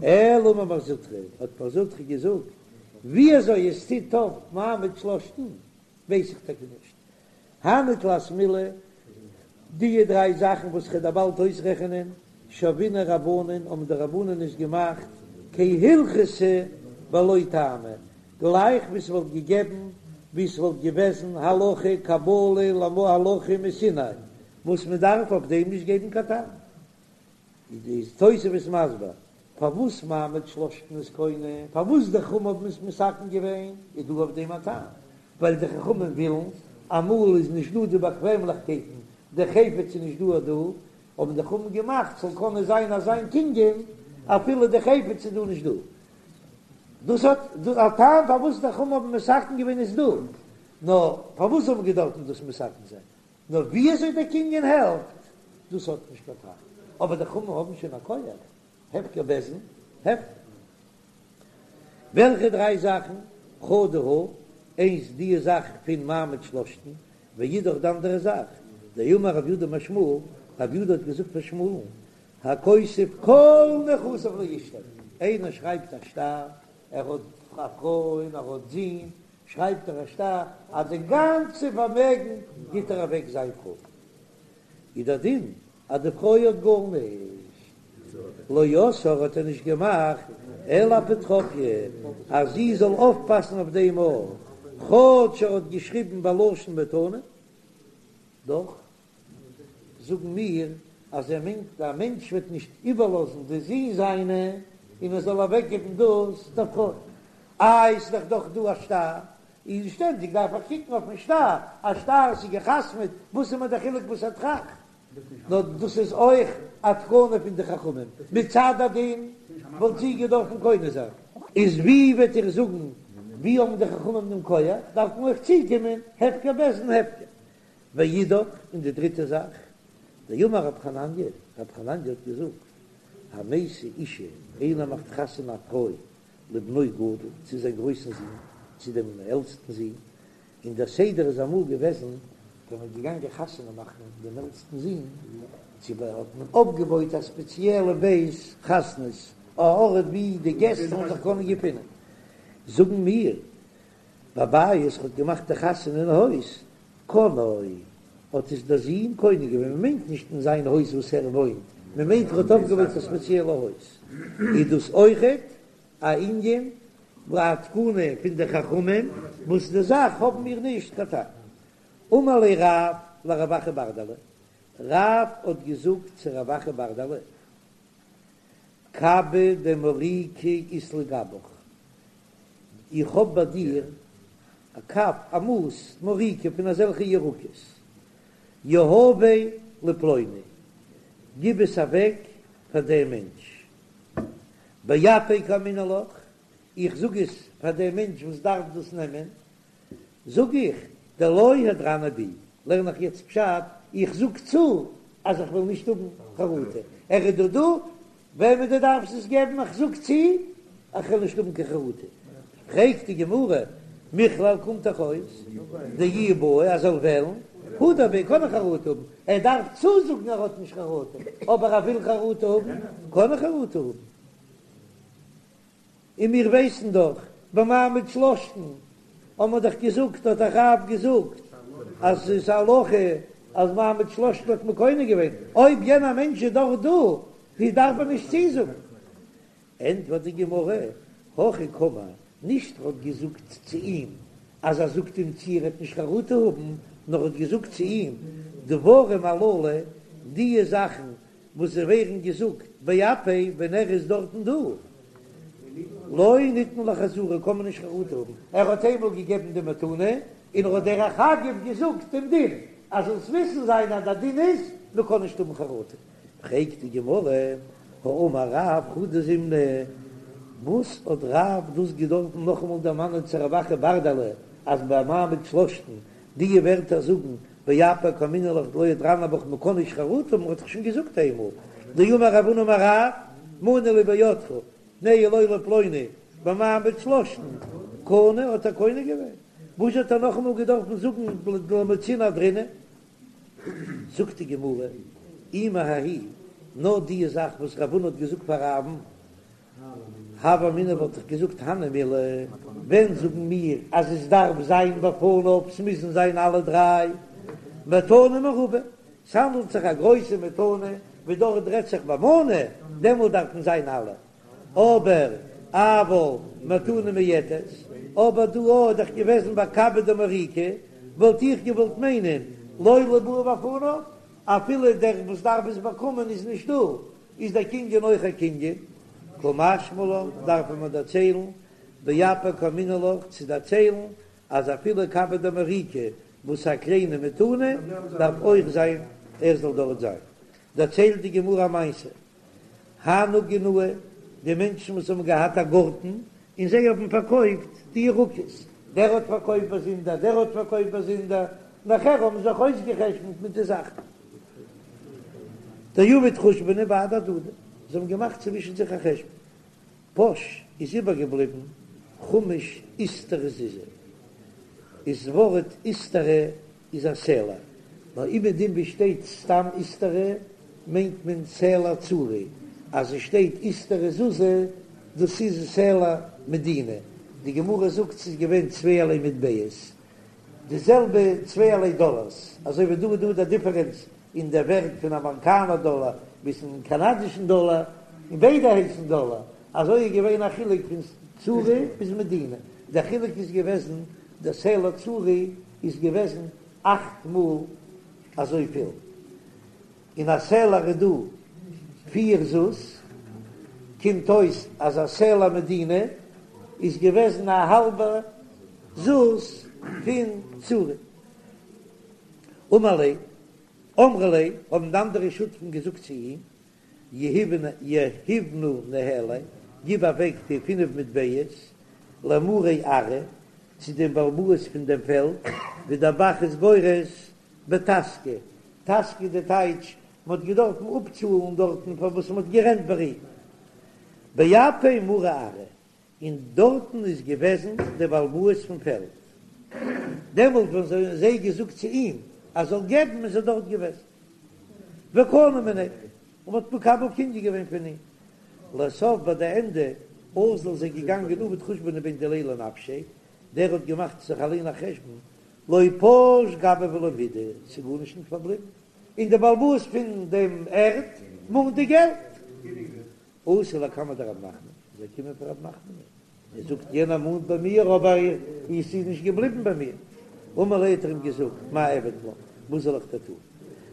אלא אמר מר זוטרא, האט מר זוטרא געזאגט, ווי אזוי עס טוט אויף מעמד שלשתן, ווייס איך טאקע נישט. הני תלת מילי, די דריי זאכן וואס כ'וועל דיר באלד אויסרעכענען, שוינהו רבנן, האבן די רבנן עס געמאכט כהלכתא בלא טעמא, גלייך ווי ס'וואלט געגעבן, ווי ס'וואלט געוועזן הלכה קבלה להלכה מסיני, וואס מ'דארף אויף דעם נישט געבן קיין טעם. איז תוספות מסביר פארוואס מעמד שלשתן איז קונה, פארוואס די חכמים האבן עס מתקן געווען, איז דא אויף דעם א טעם, ווייל די חכמים ווילן, אמאל איז נישט דא די באקוועמליכקייטן, די חפץ איז נישט דא דא, האבן די חכמים געמאכט ס'זאל קענען זיין אזא קנין אפילו די חפץ איז דא נישט דא. דאס האט א טעם פארוואס די חכמים האבן מתקן געווען איז דא, נאר פארוואס האבן געדארפן דאס מתקן זיין? נאר ווי אזוי דער קנין העלפט, דאס האט נישט קיין טעם, אבער די חכמים האבן שוין א כח, הפקר בית דין, הפקר. וועלכע דריי זאכן? חדא הא, איינס די זאך פון מעמד שלשתן, ואידך די אנדערע זאך, דאמר רב יודא אמר שמואל, רב יודא האט געזאגט פאר שמואל'ן, הכותב כל נכסיו לאשתו, איינער שרייבט א שטר, ער האט א פרוי און ער האט זין, שרייבט ער א שטר אז די גאנצע פארמעגן גיט ער אוועק זיין פרוי, איז דער דין אז די פרוי האט גארנישט, לא עשאה האט ער נישט געמאכט אלא אפוטרופיא אז זי זאל אויפפאסן אויף דעם אויך, כאטש ער האט געשריבן בלשון מתנה, דאך זאגן מיר אז ער מיינט א מענטש וועט נישט איבערלאזן די זין זיינע און ער זאל אוועקגעבן דאס דער פרוי. איי ס'איז דאך דאך דא א שטר, און שטענדיג דארף איך קוקן אויפן שטר, א שטר ס'איז גע'חתמ'עט, וואס איז מיר דער חילוק וואס ער טראכט? נאר דאס איז אויך א תקנה פון די חכמים, מצד הדין וואלט זי געדארפן קונה זיין. איז ווי וועט איר זאגן ווי האבן די חכמים דעם כח, דארף מען אויך צוקומען הפקר בית דין הפקר. ואידך, און די דריטע זאך, דאמר רב חנניה, רב חנניה האט געזאגט, המשיא אשה, איינער מאכט חתונה א פרוי לבנו גדול, צו זיין גרויסן זון, צו דעם עלטסטן זון, און דער סדר איז אמאל געוועזן, ווען מ'איז געגאנגען חתונה מאכן דעם עלטסטן זון, צו ב האט מען אויפגעבויט א ספעציעלע בית חתנות, א ארט ווי די געסט זאלן זיך קענען געפינען. זאגן מיר, בבית האט געמאכט די חתונה אין הויז, קנאו, האט עס דער זון קונה געווען, מען מיינט נישט אין זיין הויז וואס ער וואוינט, מען מיינט ער האט אויפגעבויט א ספעציעלע הויז, איז דאס אויכעט א ענין א תקנה פון די חכמים, וואס די זאך האבן מיר נישט קיין טעם. אמר ליה רב לרב אחא ברדלא, רב האט געזאגט צו רב אחא ברדלא, קבא דמוריקא אית לי גבך, איך האב ביי דיר א קב, א מאס מוריקא פון אזעלכע ירקות, יהביה לפלוני, גיב עס אוועק פאר דעם מענטש, באפיה קאמינא לך, איך זאג עס פאר דעם מענטש וואס דארף דאס נעמען, זאג איך, דלא הדרנא בי, לערן איך יעצט פשט, איך זאג צו אז איך וועל נישט האבן חרטה, ער איז דא דא, וועמען דו דארפסט עס געבן, איך זאג צו איך וועל נישט האבן קיין חרטה. פרעגט די גמרא, מכלל קומט דאך אויס דאי בעי אז ער זאל וועלן, הדר ביה קען ער חרטה האבן, ער דארף צוזאגן ער האט נישט חרטה, אבער ער וויל חרטה האבן, קען ער חרטה האבן. און מיר ווייסן דאך במעמד שלשתן האבן מיר דאך געזאגט האט דאך רב געזאגט אז ס'איז א הלכה אז מעמד שלשתן האט מען קונה געווען, אויב יענער מענטש איז דאך דא ווי דארף מען נישט צוזאגן? ענטפערט די גמרא, הכי קאמר, נישט ער האט געזאגט צו אים אז ער זאגט אים צו ער וועט נישט חרטה האבן, נאר האט געזאגט צו אים דברים הללו, דיע זאכן וואס זיי ווערן געזאגט באפיה ווען ער איז דארטן דא, לא ניתנו לחזרה קען מען נישט חרטה האבן, ער האט איינמאל געגעבן די מתנה און ער האט דרך אגב געזאגט דעם דין, אז זאלסט וויסן זיין אז דער דין איז מען קען נישט האבן חרטה. פרעגט די גמרא, האמר רב חדא זימנא, וואס האט רב דאס געדארפן נאכאמאל דערמאנען צו רב אחא ברדלא אז ביי מעמד שלשתן די ווערטער זאגן באפיה קאמינא לך דלא הדרנא בך מ'קען נישט חרטה האבן, מ'האט דאך שוין געזאגט איינמאל דאמר רב הונא אמר רב מנה לי בידך תנהו לו לפלוני במעמד שלשתן קנה האט ער קונה געווען וואס האט ער נאכאמאל געדארפן זאגן דלא מצינא אהדרינהו? זאגט די גמרא אי מההיא נאר די זאך וואס רב הונא האט געזאגט פאר רב'ן. הוה אמינא וואלט איך געזאגט הני מילי, ווען זאגן מיר אז עס דארף זיין בפניו, ס'מוזן זיין אלע דריי, מתנה מרובה, ס'האנדלט זיך א גרויסע מתנה, ווי דארט רעדט זיך במנה, דעמאלט דארפן זיין אלע, אבער אבל מתנה מועטת, אבער דא איז דאך געוועזן ביי קבא דמוריקא, וואלט איך געוואלט מיינען לא ליבעי בפניו, אפילו דער וואס דארף עס באקומען איז נישט דא, איז דער קנין אויך א קנין, קא משמע לן דארף מען דערציילן, באפי קאמינא לך צו דערציילן אז אפילו קבא דמוריקא וואס א קליינע מתנה דארף אויך זיין ער זאל דארט זיין, דערציילט די גמרא א מעשה, הנהו גינאי, די מענטשן וואס האבן געהאט א גארטן און זיי האבן פארקויפט די ירקות, דער האט פארקויפט באזונדער, דער האט פארקויפט באזונדער, נאכער האבן זיך אויסגעחשבונט מיט די זאכן. דעבוד חושבנא בהדי הדדי, זיי האבן געמאכט צווישן זיך א חשבון, פש איז איבערגעבליבן חמש איסטרא זוזי, איז ווארט איסטרא איז א סלע, נאר אומעדום ווי שטייט סתם איסטרא מיינט מען סלע צורי, אז עס שטייט איסטרא זוזי דאס איז סלע מדינה, די גמרא זאגט ס'איז געווען צווייערליי מטבעות, די זעלבע צווייערליי דאלארס, אזוי ווי דא איז דא די דיפערענץ אין דער ווערט פון אמעריקאנער דאלאר ביזן קאנאדישן דאלאר, און ביידע הייסן דאלאר, אזוי איז געווען א חילוק פון צורי ביז מדינה, דער חילוק איז געוועזן דער סלע צורי איז געוועזן אכט מאל אזויפיל, אין א סלע איז דא פיר זוז, קומט אויס אז א סלע מדינה איז געוועזן א האלבע זוז פון צורי. אמר ליה, אמרו ליה, האבן די אנדערע שותפים געזאגט צו אים, יהיבנא ניהליה, גיב אוועק די פינף מטבעות למרי ארעא, צו דעם בעל הבית פון דעם פעלד, ווי דער ב"ח איז גורס בטסקא, טסקא די טייטש, מען האט געדארפן אפצאלן דארטן פאר וואס מען האט גערענט ביי אים. באפי מרי ארעא, און דארטן איז געוועזן דער בעל הבית פון פעלד. דעמאלט ווען זיי האבן זיי געזאגט צו אים אז זאל געבן איז ער דארט געוועזן. וקנו מיניה, און מען האט מקבל קנין געווען פון אים. לסוף ביי די ענדע אזל איז ער געגאנגען עבד חושבנא בין דיליה לנפשיה, דער האט געמאכט זיך אליין א חשבון, לא פש גביה ולא מידי, ס'איז גארנישט נישט פארבליבן, און דער בעל הבית פון דעם ערד מאנט די געלט. אתא לקמיה דרב נחמן, איז ער געקומען פאר רב נחמן, ער זאגט יענער מאנט ביי מיר אבער עס איז נישט געבליבן ביי מיר, אמר ליה האט ער אים געזאגט מאי אעביד לך, וואס זאל איך דיר טון,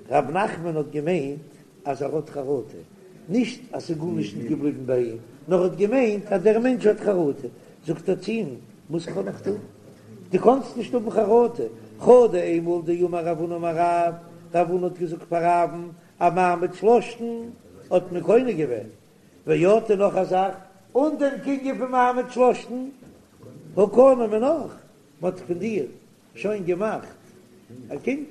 רב נחמן האט געמיינט אז ער האט חרטה, נישט אז ס'איז גארנישט נישט געבליבן ביי אים, נאר ער האט געמיינט אז דער מענטש האט חרטה, זאגט ער צו אים, וואס קען איך טון, דו קאנסט נישט האבן חרטה, חדא איינמאל דאמר רב הונא אמר רב, רב הונא האט געזאגט פאר רב'ן, א מעמד שלשתן האט מען קונה געווען, ועוד און נאך א זאך, אן דעם קנין פון מעמד שלשתן הא קנו מינך, מען האט פון דיר שוין געמאכט א קנין.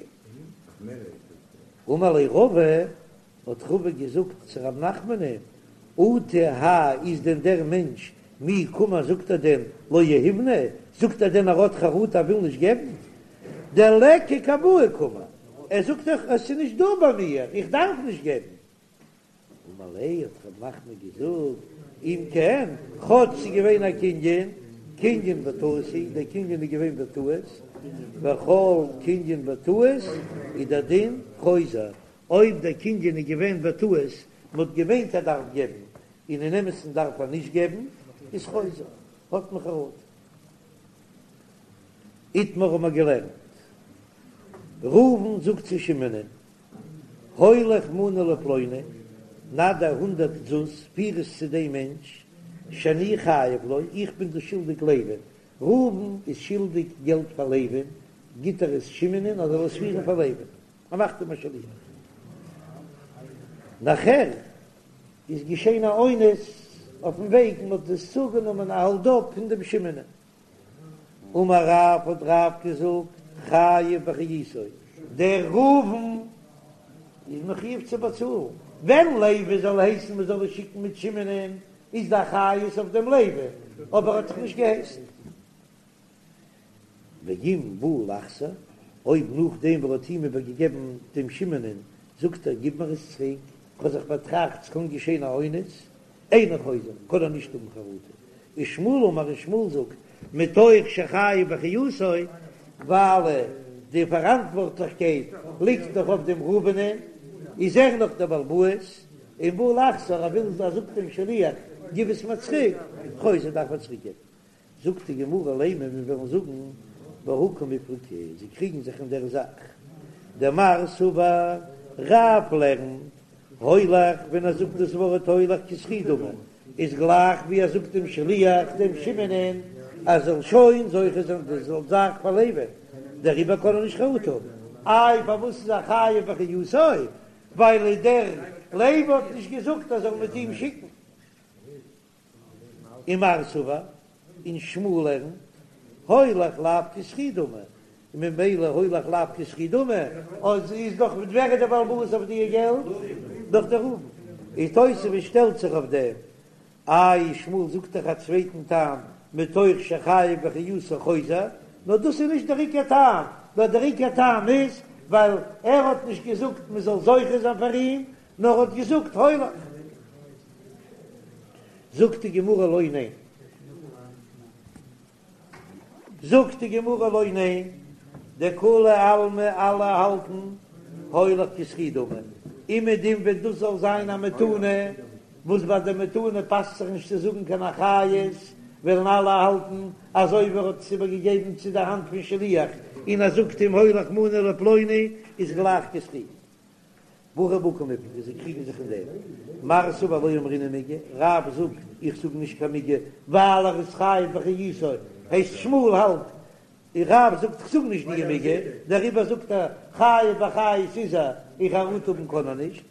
אמר ליה רבא, האט רבא געזאגט צו רב נחמנ'ען, אטו האי איז דען דער מענטש מי קאמר זאגט ער דען לא יהיבנא, זאגט ער דען ער האט חרטה ער וויל נישט געבן, דליכא קמאי קאמר, ער זאגט דאך עס איז נישט דא ביי מיר, איך דארף נישט געבן. אמר ליה האט רב נחמן געזאגט, אם כן, כאטש ס'איז געווען א קנין, קנין בטעות הוא, דער קנין איז געווען בטעות, וכל קנין בטעות איז דער דין חוזר, אויב דער קנין איז געווען בטעות, מ'האט געמיינט ער דארף געבן, און אין אמת'ן דארף ער נישט געבן, איז חוזר, האט מען חרטה. איתמר האבן מיר געלערנט, ראובן זאגט צו שמעונ'ען, הוליך מנה לפלוני, נא דיר הונדערט זוז, פיר עס צו דעם מענטש, שאני חייב לו, איך בין דאס שולדיג לוי'ן, ראובן איז שולדיג געלט פאר לוי'ן, גיט ער עס שמעונ'ען אז ער זאל עס פירן פאר לוי'ן, ער מאכט אים א שליח. נאכער איז געשען א אונס אויפן וועג, מען האט עס צוגענומען א האלד-אפ פון דעם שמעונ'ען. אמר רב האט רב געזאגט חייב באחריותו, דער ראובן איז מחויב צו באצאלן, ווען לוי זאל הייסן מען זאל עס שיקן מיט שמעונ'ען איז די אחריות אויף דעם לוי, אבער ער האט דאך נישט געהייסן. ואם בא לחזור, אויב נאכדעם וואס ער האט אים איבערגעגעבן דעם שמעונ'ען זאגט ער גיב מיר עס צוריק, כ'האב זיך באטראכט ס'קען געשען א אונס. אינו חוזר, קען ער נישט האבן חרטה. ושמואל אמר און שמואל זאגט, מתוך שחייב באחריותו, ווייל די פאראנטווארטליכקייט ליגט דאך אויף דעם ראובנ'ען, איז ער נאך דער בעל הבית, און בא לחזור, ער וויל ער זאגט דעם שליח גיב עס מיר צוריק, חוזר דארף ער צוריק געבן. זאגט די גמרא לימא מיר וועלן זאגן בהא קמיפלגי, זיי קריגן זיך אין דער זאך, דמר סבר רב לערנט הולך ווען ער זאגט דאס ווארט הולך כזכי דמי איז גלייך ווי ער זאגט דעם שליח דעם שמעונ'ען ער זאל שוין זוכה זיין די זאך פאר לוי'ן, דעריבער קען ער נישט חרטה האבן. איי פארוואס איז ער חייב באחריותו? ווייל דער לוי האט נישט געזאגט ער זאל מיט אים שיקן. ומר סבר און שמואל לערנט הולך לאו כזכי דמי, און ממילא הולך לאו כזכי דמי, אז איז דאך ווער איז דער בעל הבית אויף די געלט? דאך דער ראובן. און תוספות שטעלט זיך אויף דעם, איי שמואל זאגט דאך א צווייטן טעם מתוך שחייב באחריותו חוזר, נאר דאס איז נישט דער עיקר טעם, נאר דער עיקר טעם איז ווייל ער האט נישט געזאגט מען זאל זוכה זיין פאר אים, נאר ער האט געזאגט הולך. זאגט די גמרא לא ניין. זאגט די גמרא לא ניין, דכולי עלמא אלע האלטן הולך כזכי דמי, אומעדום ווען דאס זאל זיין א מתנה, וואס ביי די מתנה פאסט זיך נישט צו זאגן קיין אחריות, וועלן אלע האלטן אז אויב ער האט עס איבערגעגעבן צו די האנט פון שליח און ער זאגט אים הולך מנה לפלוני איז גלייך כזכי. והכא בהא קמיפלגי, זיי קריגן זיך אין דעם. מר סבר לא אמרינן מיגו, רב זאגט איך זאג נישט קיין מיגו ווייל ער איז חייב באחריותו, הייסט שמואל האלט און רב זאגט איך זאג נישט די מיגו, דעריבער זאגט ער חייב באחריות איז ער, און חרטה האבן קען ער נישט,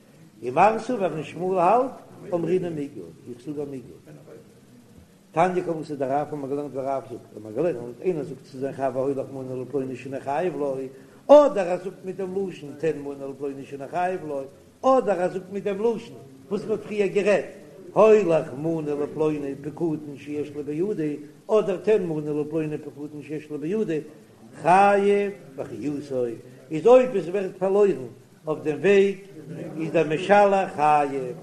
ומר סבר און שמואל האלט אמרינן מיגו, איך זאג א מיגו. תניא כוותיה דרב האבן מיר געלערנט ווי רב זאגט, האבן מיר געלערנט, איינער זאגט צו זיין חבר הולך מנה לפלוני שאני חייב לו, אדער ער זאגט מיט דעם לשון תן מנה לפלוני שאני חייב לו, אדער ער זאגט מיט דעם לשון וואס מ'האט פריער גערעדט, הולך מנה לפלוני פקדון שיש לי בידי, אדער תן מנה לפלוני פקדון שיש לי בידי, חייב באחריותו, איז אויב עס ווערט פארלוירן אויף דעם וועג איז דער משלח חייב,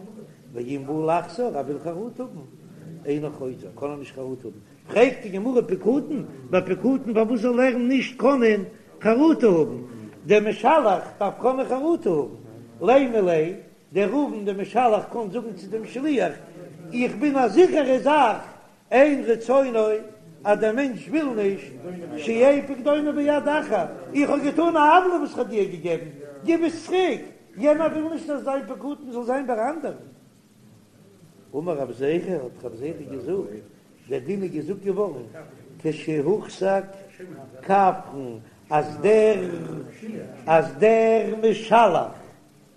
ואם בא לחזור ער וויל חרטה האבן, אינו חוזר, קען ער נישט חרטה האבן, פרעגט די גמרא פקדון, ביי פקדון פארוואס זאל ער נישט קענען חרטה האבן, דער משלח דארף קענען חרטה האבן, לימא ליה, דער ראובן דער משלח קען זאגן צו דעם שליח, איך בין א זיכערע זאך אין רצונו אז דער מענטש וויל נישט שיהא פקדונו ביד אחר, איך האב געטאן א עוולה וואס כ'האב דיר געגעבן, גיב עס צוריק, יענער וויל נישט אז זיין פקדון זאל זיין ביי אנדערן. אמר רב זירא, האט רב זירא געזאגט, דער דין איז געזאגט געווארן כשהוחזק כפרן, אז דער אז דער משלח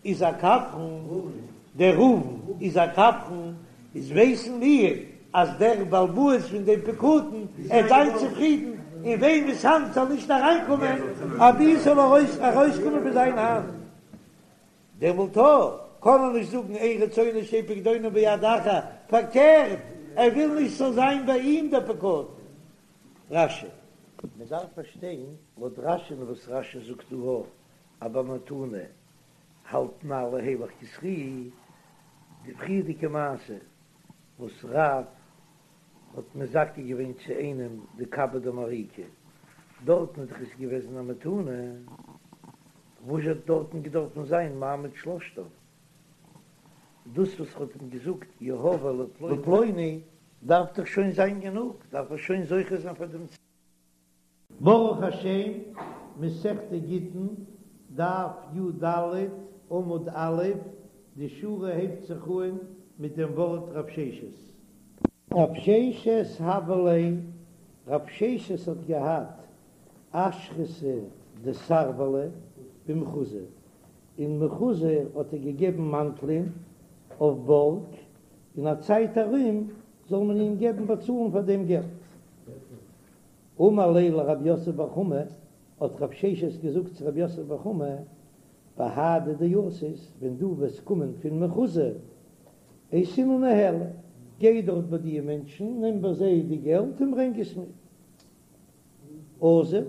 איז א כפרן, דער ראובן איז א כפרן, איז ווייסן מיר אז דער בעל הבית פון דעם פקדון עט זיין צופרידן אין וועמענס האנט זאל נישט אריינקומען אבי עס זאל ארויסקומען פון זיין האנט, דעמאלט קען ער נישט זאגן אין רצונו שיהא פקדונו ביד אחר, פארקערט ער וויל נישט ס'זאל זיין ביי אים דער פקדון. רש"י. מען דארף פארשטיין לויט רש"י'ן וואס רש"י זאגט דא אז ביי מתנה האלטן אלע הולך כזכי, די פריערדיגע מעשה וואס רב האט מזכה געווען צו איינעם די קבא דמריקא, דארטן איז דאך עס געוועזן א מתנה, וואס האט דארטן געדארפן זיין מעמד שלשתן? דאס וואס ער האט אים געזאגט יהביה לפלוני דארף דאך שוין זיין גענוג, דארף ער שוין זוכה זיין פאר דעם. ברוך השם, מסכת גיטין, דף י"ד, עמוד א', די שורה הייבט זיך אהן מיט דעם ווארט רב ששת. רב ששת הוה ליה, רב ששת האט געהאט אשרתא דסרבלא במחוזא, אין מחוזא האט ער געגעבן מאנטלען אויף בארג, אין א צייט ארום זאל מען אים געבן באצאלן פאר דעם געלט. אמר ליה לרב יוסף בר חמא, האט רב ששת געזאגט צו רב יוסף בר חמא, בהדי דאתית, ווען דו וועסט קומען פון מחוזא, אייתינהו ניהלי, גיי דארט ביי די מענטשן, נעם ביי זיי די געלט און ברענג עס מיר. אזל,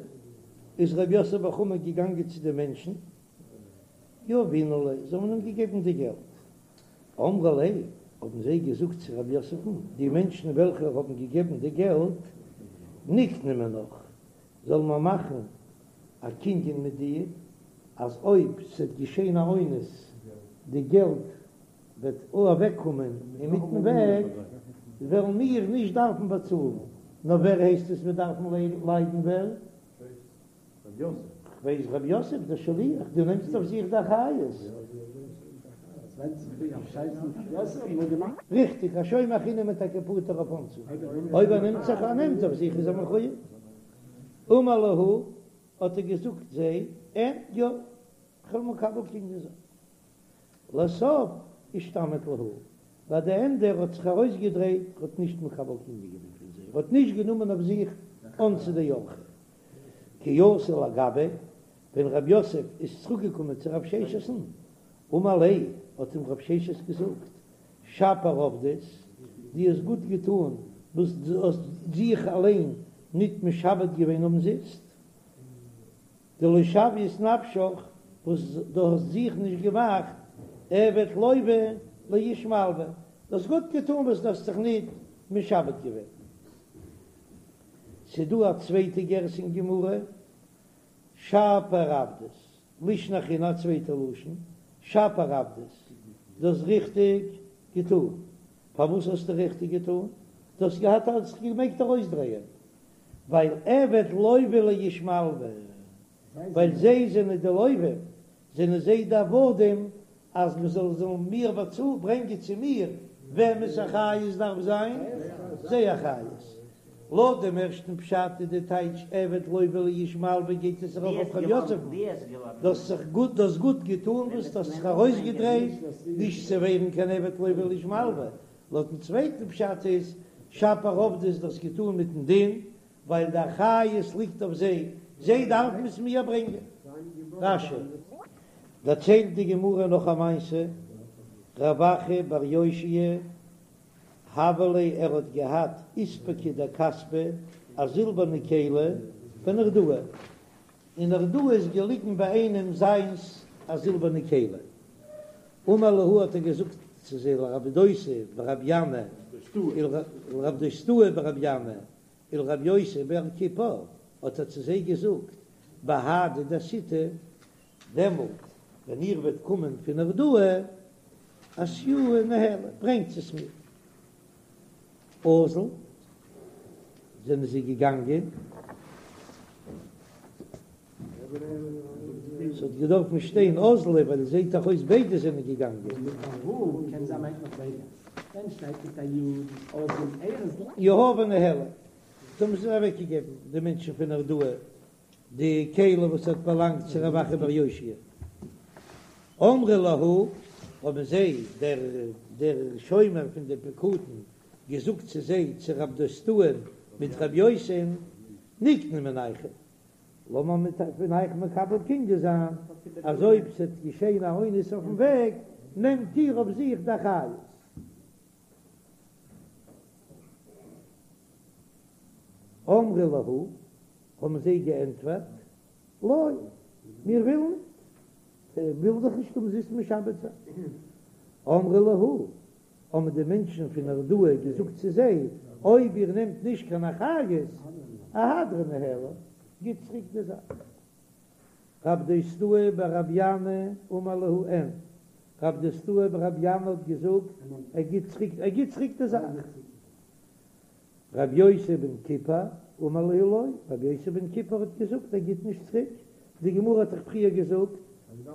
איז רב יוסף בר חמא געגאנגען צו די מענטשן, יהבינהו ליה, זיי האבן אים געגעבן די געלט. אמרי ליה. האבן זיי געזאגט צו רב יוסף'ן, די מענטשן וועלכע האבן געגעבן די געלט, נקני מינך, זאלן מיר מאכן א קנין מיט דיר, אז אויב ס'וועט געשען א אונס, די געלט וועט אוועקקומען אינמיטן וועג, וועלן מיר נישט דארפן באצאלן, נאר ווער הייסט עס וועט דארפן ליידן ווער? כ'ווייס רב יוסף דער שליח, דו נעמסט אויף זיך די אחריות. ריכטיג, א שומר חינם איז טאקע פטור אויף אונסים, אויב ער נעמט זיך ער נעמט אויף זיך איז ער מחויב. אמר להו, האט ער געזאגט זיי, אין, יא, כ'וועל מקבל קנין זיין. לסוף אישתמיט להו, ביי די ענדע ער האט זיך ארויסגעדרייט, ער האט נישט מקבל קנין געווען פון זיי, ער האט נישט גענומען אויף זיך אונסא דאורחא. כי אתא לגביה, ווען רב יוסף איז צוריק געקומען צו רב ששת'ן, אמר ליה, האט אים רב ששת געזאגט, שפיר עבדת, דו האסט גוט געטאן וואס דו האסט זיך אליין ניט משעבד געווען אומזיסט, דלא שוית נפשך, וואס דו האסט זיך נישט געמאכט עבד לוה לאיש מלוה, דו האסט גוט געטאן וואס דו האסט זיך ניט משעבד געווען. ס'דא א צווייטע גירסא אין גמרא, שפיר עבדת, לישנא אחרינא א צווייטע לשון, שפיר עבדת, דו האסט ריכטיג געטאן. פארוואס האסטו ריכטיג געטאן? דו האסט געהאט האסט זיך געמעגט ארויסדרייען, ווייל עבד לוה לאיש מלוה, ווייל זיי זענען די לווים, זענען זיי די עבדים, אז מען זאל זאלן מיר באצאלן, ברענגען צו מיר, וועמענס אחריות דארף זיין? זייער אחריות. לויט דעם ערשטן פשט איז די טייטש עבד לוה לאיש מלוה גייט עס ארויף אויף ר' יוסף'ן, דו האסט זיך גוט, דו האסט גוט געטאן וואס דו האסט זיך ארויסגעדרייט נישט צו ווערן קיין עבד לוה לאיש מלוה, לויטן צווייטן פשט איז שפיר עבדת דו האסט געטאן מיטן דין ווייל די אחריות ליגט אויף זיי, זיי דארפן עס מיר ברענגען. רש"י. דערציילט די גמרא נאך א מעשה, רב אחא בר יאשיה הוה ליה ער האט געהאט איספקא דכספא א זילבערנע כלי בנהרדעא, אין נהרדעא איז געליגן ביי איינעם זיינס א זילבערנע כלי, אמר להו האט ער געזאגט צו זיי לרב דוסא ברבי ינאי לרב דוסתאי ברבי ינאי ולרב יוסי בר כיפר האט ער צו זיי געזאגט בהדי דאתיתו דעמאלט ווען איר וועט קומען פון נהרדעא אתיוה ניהלי ברענגט עס מיר. אזול זענען זיי געגאנגען. ס'האט געדארפן שטיין אזלי ווייל עס זעט דאך אויס ביידע זענען געגאנגען. יהבו ניהליה, זיי האבן עס אוועקגעגעבן די מענטשן פון נהרדעא די כלי וואס האט באלאנגט צו רב אחא בר יאשיה. אמרי להו, האבן זיי, דער דער שומר פון די פקדון, געזאגט צו זיי, צו רב דוסתאי'ן מיט רב יוסי'ן, נקני מינייכו, לאמיר מיט פון אייך מקבל קנין זיין, אז אויב ס'וועט געשען א אונס אויפן וועג, נעמט איר אויף זיך די אחריות. אמרי להו, האבן זיי געענטפערט, לא, מיר ווילן ניט, מיר ווילן זיך נישט אומזיסט משעבד זיין. אמרי להו, האבן די מענטשן פון נהרדעא געזאגט צו זיי, אויב איר נעמט נישט קיין אחריות, אהדרו ניהלה, גיט צוריק די זאך. רב דוסתאי ברבי ינאי אמר להו אין, רב דוסתאי ברבי ינאי האט געזאגט, ער גיט צוריק, ער גיט צוריק די זאך. רבי יוסי בן כיפר אמר להו לא, רבי יוסי בן כיפר האט געזאגט ער גיט נישט צוריק, די גמרא האט דאך פריער געזאגט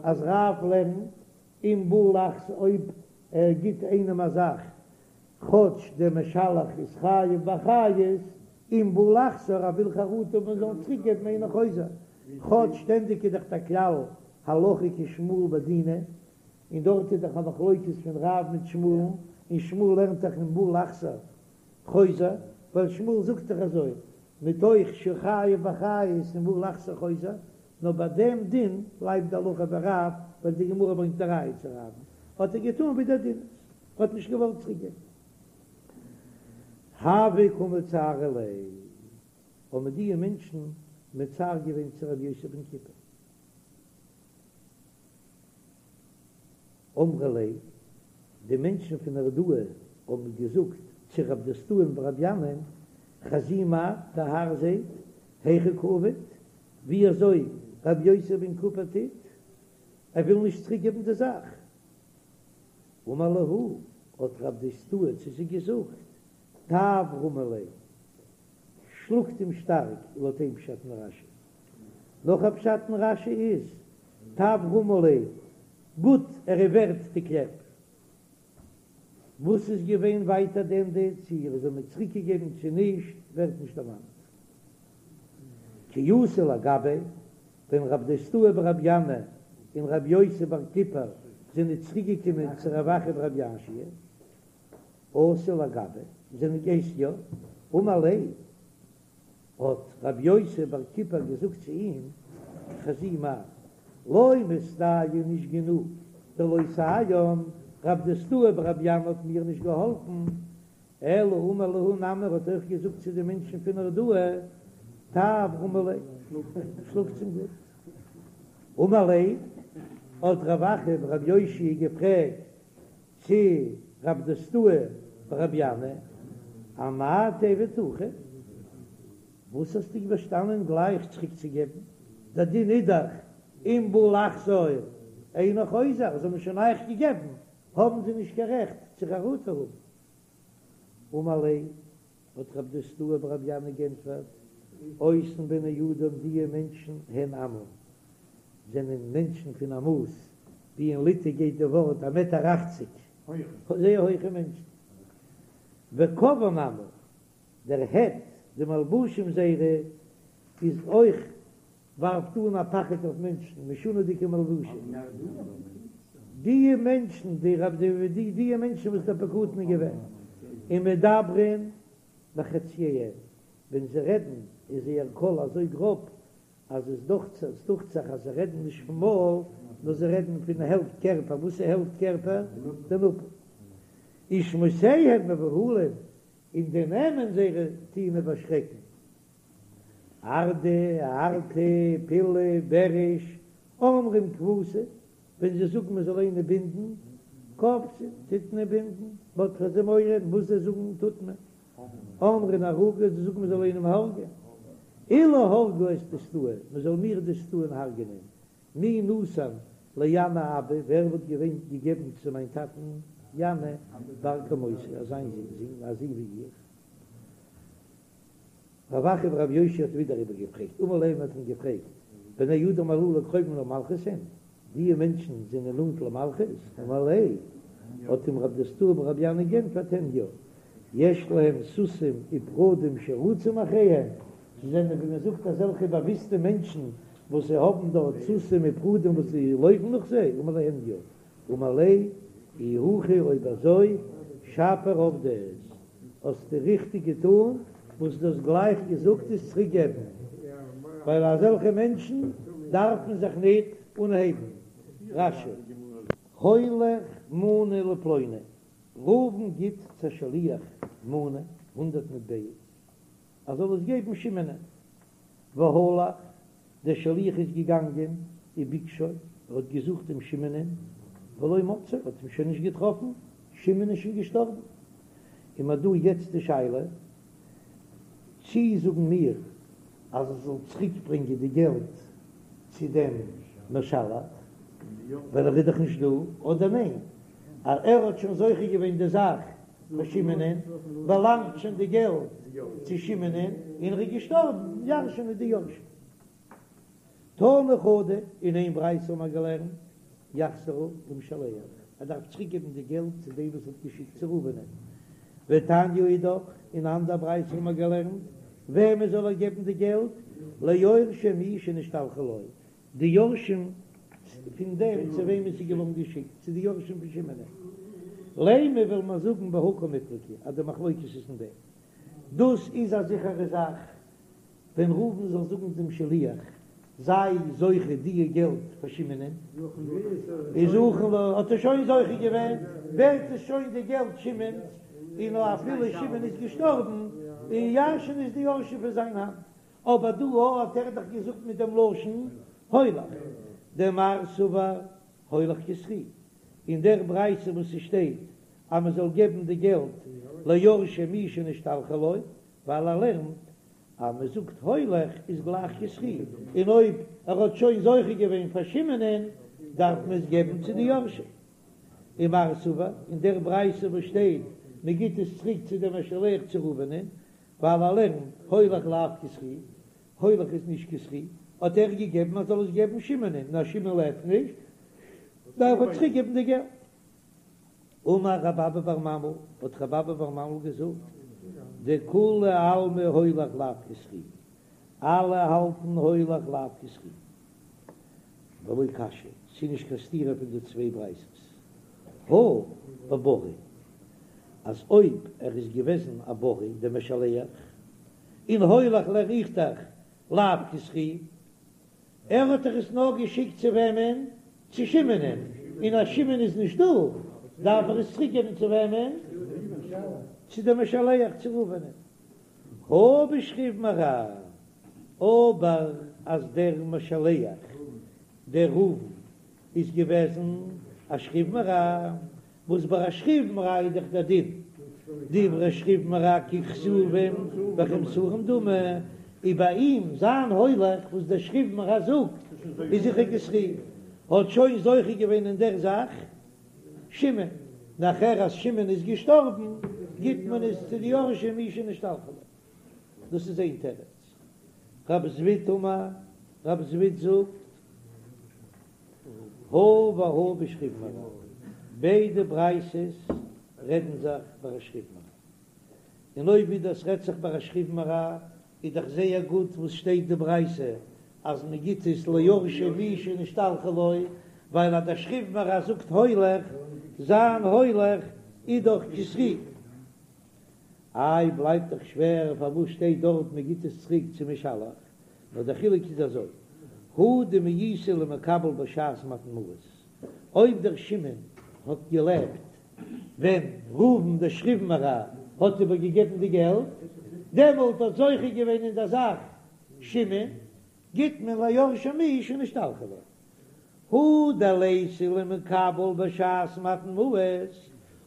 אז רב לערנט אם בא לחזור אויב ער גיט איינעם א זאך כאטש דער משלח איז חייב באחריות, אם בא לחזור ער וויל חרטה האבן זאל אים צוריק געבן אינו חוזר, כאטש שטענדיג איז דאך דער כלל הלכה כשמואל בדינא, און דארט איז דאך א מחלוקת פון רב מיט שמואל, און שמואל לערנט דאך אם בא לחזור חוזר, ווייל שמואל זאגט דאך אזוי, מתוך שחייב באחריות אם בא לחזור חוזר, נאר ביי דעם דין בלייבט די הלכה ווי רב, ווייל די גמרא ברענגט א ראיה צו רב, האט ער געטאן ווי דער דין איז, ער האט נישט געוואלט צוריק געבן. הוו קא מצערי ליה, האבן די מענטשן מצער געווען צו רבי יוסי בן כיפר. אמרי ליה. די מענטשן פון נהרדעא האבן געזאגט צו רב דוסתאי'ן ברבי ינאי'ן, חזי מר, דער האר זעט, היכי קא עביד, ווי אזוי רבי יוסי בן כיפר טוט, ער וויל נישט צוריק געבן די זאך. אמר להו, האט רב דוסתאי צו זיי געזאגט, טב רמו ליה, שלאגט אים שטארק, לויט איין פשט אין רש"י. נאך א פשט אין רש"י איז, טב רמו ליה, גוט ער איז ווערט די קלעפ. וואס איז געווען ווייטער די ענדע, צו ער האט אים צוריקגעגעבן צו נישט, ווערט נישט דערמאנט. כי אתו לגביה, ווען רב דוסתאי ברבי ינאי און רבי יוסי בר כיפר זענען צוריקגעקומען צו רב אחא ברבי יאשיה, אתו לגביה, זענען געס יא, אמר ליה, האט רבי יוסי בר כיפר געזאגט צו אים, חזי מר, לא מסתייעא נישט גענוג, דלא סייען, רב דוסתאי ברבי ינאי האט מיר נישט געהאלפן, אלא אמר להו נמי האט אויך געזאגט צו די מענטשן פון נהרדעא, טב רמו ליה, שלאגטס אים גוט. אמר ליה, האט רב אחא ברבי יאשיה געפרעגט צו רב דוסתאי ברבי ינאי, אמאי תיעביד הכי? וואס האסטו באשטאנען גלייך צוריק צו געבן? דער דין איז דאך אם בא לחזור אינו חוזר, זיי האבן שוין אייך געגעבן, האבן זיי נישט קיין רעכט צו חרטה האבן. אמר ליה, האט רב דוסתאי ברבי ינאי גענטפערט, אותן בני אדם דיע מענטשן הן אמה, זענען מענטשן פון א מאס, ווי אין ליטע גייט די ווארט א מעטער אכציג, זייער הויכע מענטשן, וקוון אמה, דער הד, די מלבושים זייערע איז אויך ווארפט אן א פחד אויף מענטשן, משונה'דיגע מלבושים. דיע מענטשן, די רב די די דיע מענטשן וואס דער פקדון איז געווען, ומדברין בחצייהם, ווען זיי רעדן איז זייער קול אזוי גראב, אז עס דוכט עס דוכט זיך אז זיי רעדן נישט פון מויל, נאר זיי רעדן פון העלפט קערפער, וואס איז העלפט קערפער? די נאפל. ושמותיהם מבהילין, און די נעמען זייערע טוען איבערשרעקן. ארדע, ארטע, פילא, בעריש, אומרים כפתו, ווען זיי זאגן מען זאל איינער בינדן, כופתין, טוט מען בינדן, מ'האט פאר זיי מורא, וואס זיי זאגן טוט מען. אומרים ערוגה, זיי זאגן מען זאל איינעם הרג'ען. אילו הרגו את דוסתאי, מען זאל מיר דוסתאי'ן הרג'ענען, מי נתן לינאי אבא, ווער וואלט געווען געגעבן צו מיין טאטן ינאי בר כמותי, אזא זון, א זון ווי איך. רב אחא ברבי יאשיה האט ווידער איבערגעפרעגט, אמר ליה האט אים געפרעגט, בני אדם הללו קרובים למלכות הן, דיע מענטשן זענען נאנט למלכות? אמר ליה, האט אים רב דוסתאי ברבי ינאי גענטפערט הן יא, יש להם סוסים ופרדים שרצים אחריהם, זיי זענען ווי מען זאגט אזעלכע באוויסטע מענטשן וואס זיי האבן דארט סוסים ופרדים וואס זיי לויפן נאך זיי, אמר ליה הן יא, אמר ליה, אי הכי אויב אזוי שפיר עבדת, האסטו ריכטיג געטון וואס דו האסט גלייך געזאגט עס צוריק געבן, ווייל אזעלכע מענטשן דארף מען זיך ניט אנהייבן. רש"י. הוליך מנה לפלוני, ראובן גיט צו א שליח מנה, הונדרעט מטבעות, ער זאל עס געבן שמעונ'ען. והלך, דער שליח איז געגאנגען, וביקשו, ער האט געזוכט דעם שמעונ'ען, ולא מצאו, ער האט אים שוין נישט געטראפן, שמעון איז שוין געשטארבן. און מ'האט דא יעצט די שאלה, צי זאגן מיר אז ער זאל צוריק ברענגען די געלט צו דעם משלח, ווייל ער איז דאך נישט דא, אדער ניין, אז ער האט שוין זוכה געווען די זאך פאר שמעונ'ען, באלאנגט שוין די געלט צו שמעונ'ען, און ער איז געשטארבן, ירש'ענען די יורשים. תנא חדא, אין איין ברייתא האבן מיר געלערנט, יחזירה למשלח, ער דארף צוריק געבן די געלט צו דעם וואס האט געשיקט צו ראובנ'ען. ותניא אידך, אין אן אנדער ברייתא האבן מיר געלערנט, וועמען זאל ער געבן די געלט? ליורשי מי שנשתלחה לו, די יורשים פון דעם צו וועמען עס איז געווארן געשיקט, צו די יורשים פון שמעונ'ען. לימא וועל מיר זאגן בהא קמיפלגי אז די מחלוקת איז אין דעם. דאס איז א זיכערע זאך, ווען ראובן זאל זאגן דעם שליח, זיי זוכה דיע געלט פאר שמעונ'ען, איז זכין ליה, האט ער שוין זוכה געווען, ווערט עס שוין די געלט שמעון'ס, און אפילו שמעון איז געשטארבן, און ירש'ענען עס די יורשים פון זיין האנט. אבער דא האט ער דאך געזאגט מיט דעם לשון הולך, דמר סבר הולך כזכי, אין דער ברייתא וואס ס'שטייט. אז מען זאל געבן די געלט ליורשי מי שנשתלחה לו, ווייל ער לערנט אז מען זאגט הולך איז גלייך כזכי, און אויב ער האט שוין זוכה געווען פאר שמעונ'ען דארף מען עס געבן צו די יורשים. ומר סבר, אין דער ברייתא וואס שטייט מען גיט עס צוריק צו דעם משלח צו ראובנ'ען, ווייל ער לערנט הולך לאו כזכי, הולך איז נישט כזכי, האט ער געגעבן אז זאל עס געבן שמעונ'ען, נאר שמעון לעבט נישט, דארף ער צוריק געבן די געלט. אמר רב אבא בר ממל, האט רב אבא בר ממל געזאגט, דכולי עלמא הולך לאו כזכי, אלע האלטן הולך לאו כזכי. ולא קשיא, ס'איז נישט קיין סתירה פון די צוויי ברייתות. הא בבריא, אז אויב ער איז געוועזן א בריא דער משלח, און הולך לערן איך דאך לאו כזכי, ער האט דאך עס נאר געשיקט צו וועמען? צו שמעונ'ען, און אז שמעון איז נישט דא, דארף ער עס צוריק געבן צו וועמען? צו דעם משלח, צו ראובנ'ען. הא בשכיב מרע, אבער אז דער משלח, דער ראובן, איז געוועזן א שכיב מרע, וואס ביי א שכיב מרע איז דאך דער דין, דברי שכיב מרע ככתובים וכמסורים דמי, איז ביי אים זיין הולך וואס דער שכיב מרע זאגט איז זיכער כזכי, האט שוין זוכה געווען אין דער זאך שמעון, נאכער אז שמעון איז געשטארבן גיט מען עס צו די יורשים מי שנשתלחה לו, דאס איז איין תירוץ. רב זביד אמר, רב זביד זאגט, הא והא בשכיב מרע, ביידע ברייתות רעדן זיך ביי א שכיב מרע, און אויב ווי דאס רעדט זיך ביי א שכיב מרע איז דאך זייער גוט וואס שטייט די ברייתא אז מען גיט עס ליורשי מי שנשתלחה לו, ווייל אז דער שכיב מרע זאגט הולך, זיין הולך איז דאך כזכי. איי בלייבט דאך שווער פארוואס שטייט דארט מען גיט עס צוריק צום משלח, נאר דער חילוק איז אזוי, הא דמאיסיה למקבל בשעת מתן מעות, אויב דער שמעון האט געלעבט ווען ראובן דער שכיב מרע האט איבער געגעבן די געלט, דעמאלט האט זוכה געווען אין דער זאך שמעון, גיט מען ליורשי מי שנשתלחה לו. הא דליתיה למקבל בשעת מתן מעות,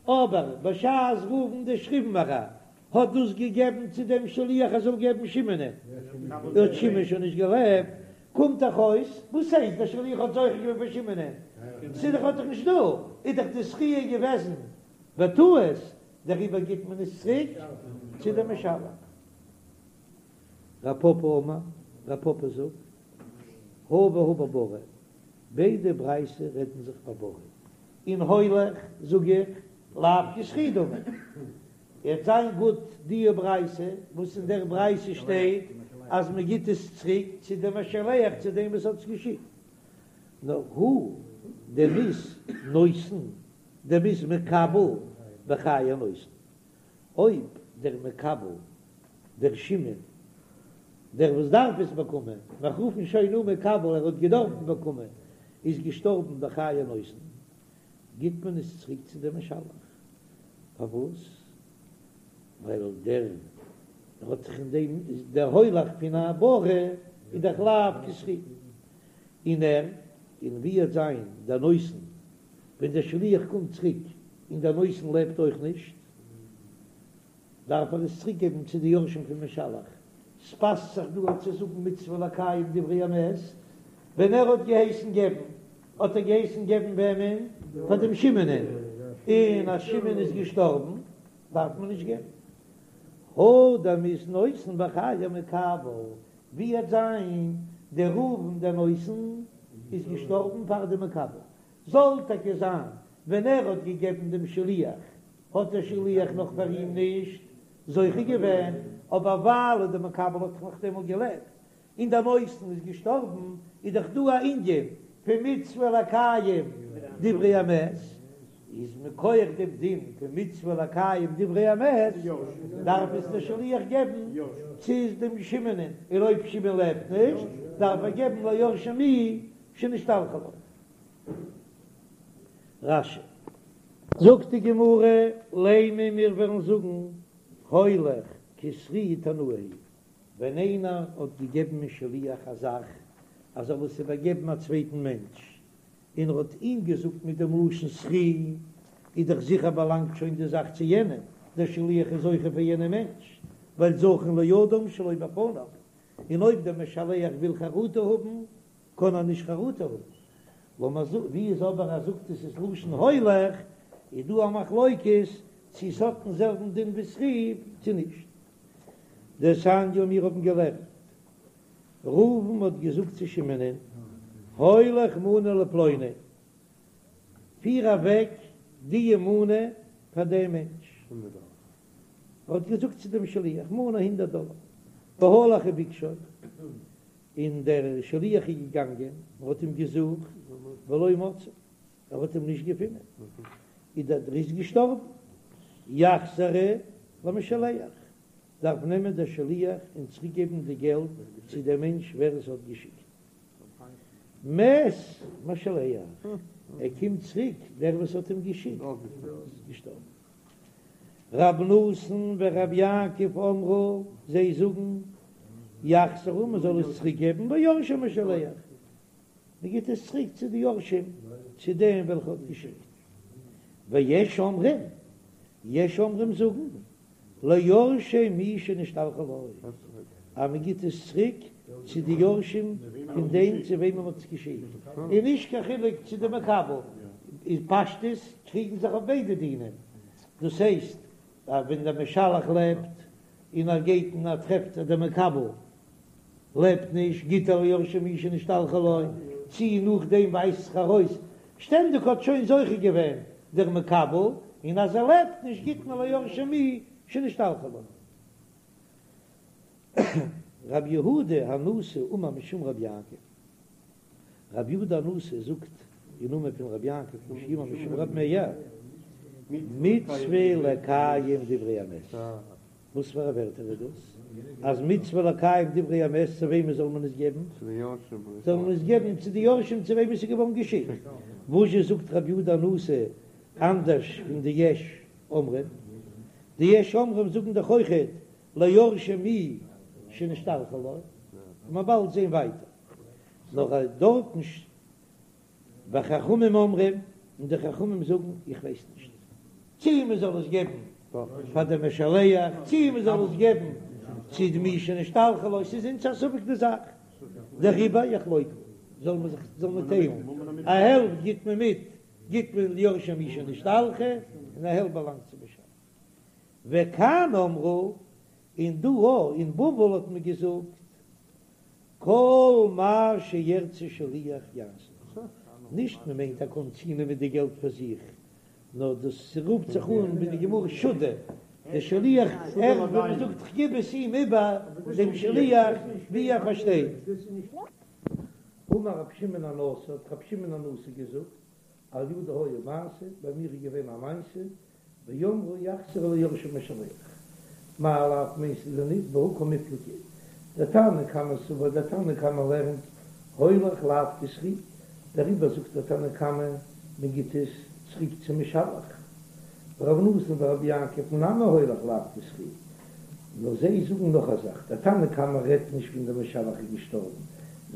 אבער בשעת ראובן דער שכיב מרע האט דאס געגעבן צו דעם שליח ער זאל געבן שמעונ'ען, האט שמעון שוין נישט געלעבט, קומט דאך אויס, וואס הייסט דער שליח האט זוכה געווען פאר שמעונ'ען? ס'איז דאך האט דאך נישט דא, איז דאך די זכיה געוועזן בטעות, דעריבער גיט מען עס צוריק צו דעם משלח. רב פפא אמר, רב פפא זאגט, הא והא בבריא, ביידע ברייתות רעדן זיך בבריא, און הולך זאג איך לאו כזכי דמי, וועט זיין גוט די ברייתא וואס אין דער ברייתא שטייט אז מען גיט עס צוריק צו דעם משלח צו דעם וואס האט עס געשיקט, נאר הא דמית נותן דמית מקבל בחיי הנותן, אויב דער מקבל דער שמעון דער וואס דארף עס באקומען, מיר רופן שוין אן מקבל ער האט געדארפט באקומען, איז געשטארבן בחיי הנותן, גיט מען עס צוריק צו דעם משלח. פארוואס? ווייל דער האט זיך אין דעם דער הולך פון א בריא איז דאך לאו כזכי, און ער און ווי וועט זיין דער נותן ווען דער שליח קומט צוריק און דער נותן לעבט אויך נישט, דארף ער עס צוריק געבן צו די יורשים פון משלח, ס'פאסט זיך דא צו זאגן מצוה לקיים דברי המת, ווען ער האט געהייסן געבן האט ער געהייסן געבן וועמען? פאר דעם שמעונ'ען, און אז שמעון איז געשטארבן דארף מען נישט געבן. הא דמית נותן בחיי המקבל, ווי וועט זיין דער ראובן דער נותן איז געשטארבן פאר דעם מקבל, זאל טאקע זיין ווען ער האט געגעבן דעם שליח האט דער שליח נאך פאר אים נישט זוכה געווען, אבער ווייל דער מקבל האט נאך דעמאלט געלעבט און דער נותן איז געשטארבן, איז דאך דא א ענין פון מצוה לקיים דברי המת, איז מכח דעם דין פון מצוה לקיים דברי המת דארף עס דער שליח געבן צו דעם שמעונ'ען, און אויב שמעון לעבט נישט דארף ער געבן ליורשי מי שנשתלחה לו. רש"י. זאגט די גמרא, לימא מיר וועלן זאגן הולך כזכי תנאי היא ווען איינער האט געגעבן א שליח א זאך אז ער זאל עס איבערגעבן א צווייטן מענטש, און ער האט אים געזאגט מיט דעם לשון זכי. איז דאך זיכער באלאנגט שוין די זאך צו יענעם, דער שליח איז זוכה פאר יענעם מענטש, ווייל זכין לאדם שלא בפניו, און אויב דער משלח וויל חרטה האבן, קען ער נישט חרטה האבן. לאמיר זאגן, ווי איז אבער ער זאגט עס איז לשון הולך, איז דא א מחלוקת צו עס האט דעם זעלבן דין ווי זכי צו נישט. דתניא מיר האבן געלערנט, ראובן האט געזאגט צו שמעונ'ען, הולך מנה לפלוני, פיר אוועק די מנה פאר דעם מענטש. ער האט געזאגט צו דעם שליח, מנה הונדערט דאלער, והלך וביקשו, און דער שליח איז געגאנגען און האט אים געזוכט, ולא מצאו, ער האט אים נישט געפונען, איז דער ער איז געשטארבן, יחזירו למשלח, דארף נעמען דער שליח און צוריק געבן די געלט צו דעם מענטש ווער עס האט געשיקט. מת משלח, ער קומט צוריק, דער וואס האט אים געשיקט איז געשטארבן. רב נתן ורב יעקב אמרו, זיי זאגן, יחזירו, מען זאל עס צוריק געבן ליורשי משלח, מען גיט עס צוריק צו די יורשים, צו דעם וועלכע האט געשיקט. ויש אומרים, יש אומרים זאגן, ליורשי מי שנשתלחה לו, אז מען גיט עס צוריק צו די יורשים פון דעם צו וועמען מען האט עס געשיקט, און נישט קיין חילוק צו די מקבל, אין פשטות קריגן זיך אויף ביידע דינים, דאס הייסט אז ווען דער משלח לעבט און ער גייט און ער טרעפט אז דער מקבל לעבט נישט, גיט ער ליורשי מי שנשתלחה לו, צי נאכדעם ווייזט זיך ארויס, שטענדיג האט שוין זוכה געווען דער מקבל, און אז ער לעבט נישט גיט מען ליורשי מי שנשתלחה לו. רבי יהודה הנשיא אמר משום רבי יעקב, רבי יהודה הנשיא זאגט אין נאמען פון רבי יעקב שאמר משום רבי מאיר, מצוה לקיים דברי המת. וואס פאר א ווערטער איז דאס? אז מצוה לקיים דברי המת צו וועמען זאל מען עס געבן? זאל מען עס געבן צו די יורשים צו וועמען עס איז געווארן געשיקט. וואזשע זאגט רבי יהודה הנשיא אנדערש פון די יש אומרים? די יש אומרים זאגן דאך אויכעט ליורשי מי שנשתלחה לו, מ'וועט באלד זען ווייטער. נאר דארטן. וחכמים אומרים, און די חכמים זאגן, איך ווייס נישט צי מען זאל עס געבן פאר די משלח, צי מען זאל עס געבן צו די מי שנשתלחה לו, ס'איז אונז א ספק די זאך, דעריבער יחלוקו, זאל מען זיך זאל מען טיילן, א העלפט גיט מען מיט, גיט מען ליורשי מי שנשתלחה, און א העלפט באלאנגט צום משלח. וכאן אמרו, און דא אין בבל האט מען געזאגט, כל מה שירצה שליח יעשה, נישט מען מיינט ער קען צונעמען די געלט פאר זיך, נאר דאס רופט זיך אן ווי די גמרא שודא, דער שליח ער ווי מען זאגט כ'גיב עס אים איבער דעם שליח ווי ער פארשטייט. אמר רבי שמעון הנשיא, האט רבי שמעון הנשיא געזאגט, על ידי היה מעשה, ביי מיר איז געווען א מעשה, ואמרו יחזירו ליורשי משלח, מאי לאו מיינסטו דען ניט בהא קמיפלגי, דער תנא קמא סבר דער תנא קמא לערנט הולך לאו כזכי, דעריבער זאגט דער תנא קמא מען גיט עס צוריק צום משלח, ר' נתן ורבי יעקב נמי הולך לאו כזכי, נאר זיי זאגן נאך א זאך, דער תנא קמא רעדט נישט ווען דער משלח איז געשטארבן,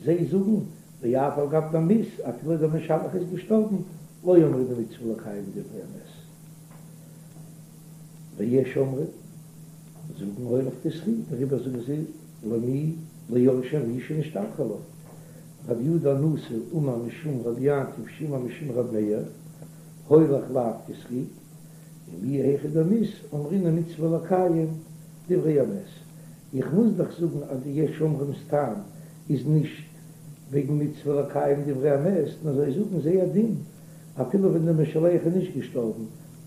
זיי זאגן ואף על גב דמית אפילו דער משלח איז געשטארבן לא אמרינן מצוה לקיים דברי המת. ויש אומרים, זאגן הולך כזכי, דעריבער זאגן זיי למי ליורשי מי שנשתלחה לו. רבי יהודה הנשיא אמר משום רבי יעקב שאמר משום רבי מאיר, הולך לאו כזכי, ומיהו היכא דמית אמרינן מצוה לקיים דברי המת. איך מוז דאך זאגן אז די יש אומרים'ס טעם איז נישט וועגן מצוה לקיים דברי המת, נאר זיי זאגן זייער דין אפילו ווען דער משלח איז נישט געשטארבן,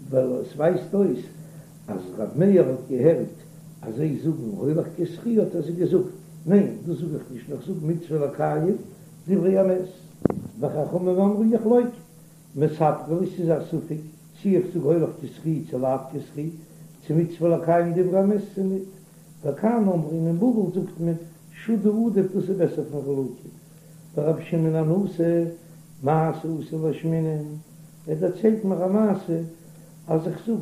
ווייל עס ווייזט אויס אז ר' מאיר האט געהערט אז זיי זאגן הולך כזכי האט ער זיי געזאגט, ניין דאס זאג איך נישט נאר איך זאג מצוה לקיים דברי המת. וחכמים אמרו יחלוקו, מספקא לי ס'איז א ספק צי איך זאג הולך כזכי צו לאו כזכי, צו מצוה לקיים דברי המת צו ניט, וכאן אמרו און אין בבל זאגט מען שודא עדיף דאס איז בעסער פון חלוקה. ורבי שמעון הנשיא, מעשה אתא לאשמועינן, ער דערציילט מיר א מעשה אז איך זאג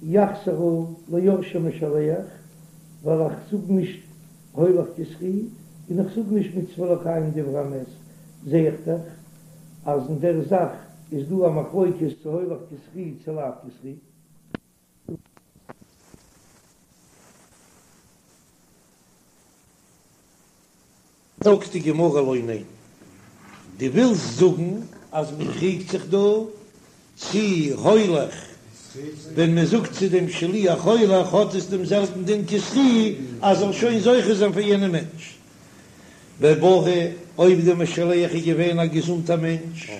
יחזירו ליורשי משלח, ווייל איך זאג נישט הולך כזכי און איך זאג נישט מצוה לקיים דברי המת, זע איך דאך אז אין דער זאך. איז דא א מחלוקת צו הולך כזכי צו לאו כזכי. זאגט די גמרא לא, ניין, דו ווילסט זאגן אז מען קריגט זיך דא צי הולך, ווען מען זאגט צו דעם שליח הולך האט עס דעם זעלבן דין כזכי אז זאל שוין זוכה זיין פאר יענעם מענטש. בבריא, אויב דער משלח איז געווען א געזונטער מענטש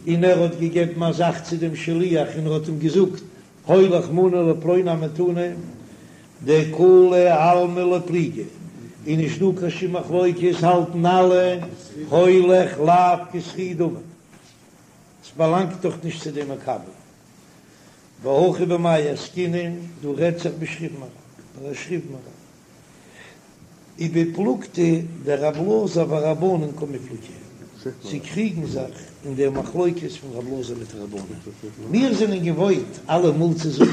און ער האט געגעבן א זאך צו דעם שליח און ער האט אים געזאגט הולך מנה לפלוני המתנה, דכולי עלמא לא פליגי, איז נישט דא קיין שום מחלוקת, האלטן אלע הולך לאו כזכי דמי, ס'באלאנגט דאך נישט צו דעם מקבל. והכא במאי עסקינן, דא רעדט זיך בשכיב מרע, ביי א שכיב מרע. ובפלוגתא דרב אלעזר ורבנן קמיפלגי, זיי קריגן זיך אין דער מחלוקת פון רב אלעזר מיט רבנן. מיר זענען געוואוינט אלעמאל צו זאגן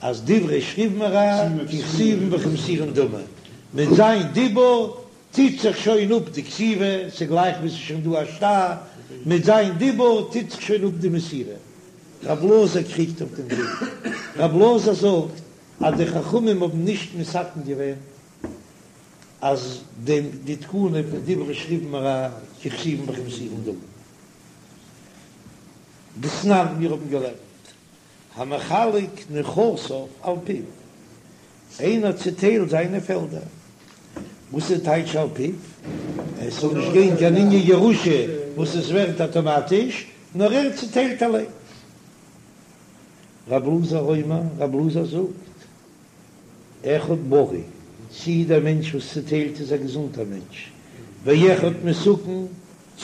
אז דברי שכיב מרע ככתובין וכמסורין דמי, מיט זיין דיבור טוט זיך שוין אפ די כתיבה, ס'גלייך ווי ס'איז שוין דא א שטר, מיט זיין דיבור טוט זיך שוין אפ די מסירה. רב אלעזר קריגט אויף דעם דין. רב אלעזר זאגט אז די חכמים האבן נישט מתקן געווען אז דעם די תקנה פון דברי שכיב מרע ככתובין וכמסורין דמי. דתנן, מיר האבן געלערנט המחלק נכסיו על פיו, איינער צוטיילט זיינע פעלדער, וואס איז טייטש על פיו? עס זאל נישט גיין קיין ענין ירושה וואס עס ווערט אטאמאטיש, נאר ער צוטיילט אליין. רב אלעזר אומר, רב אלעזר זאגט, אחד בריא, צי דער מענטש וואס צוטיילט איז א געזונטער מענטש, ואחד מסוכן,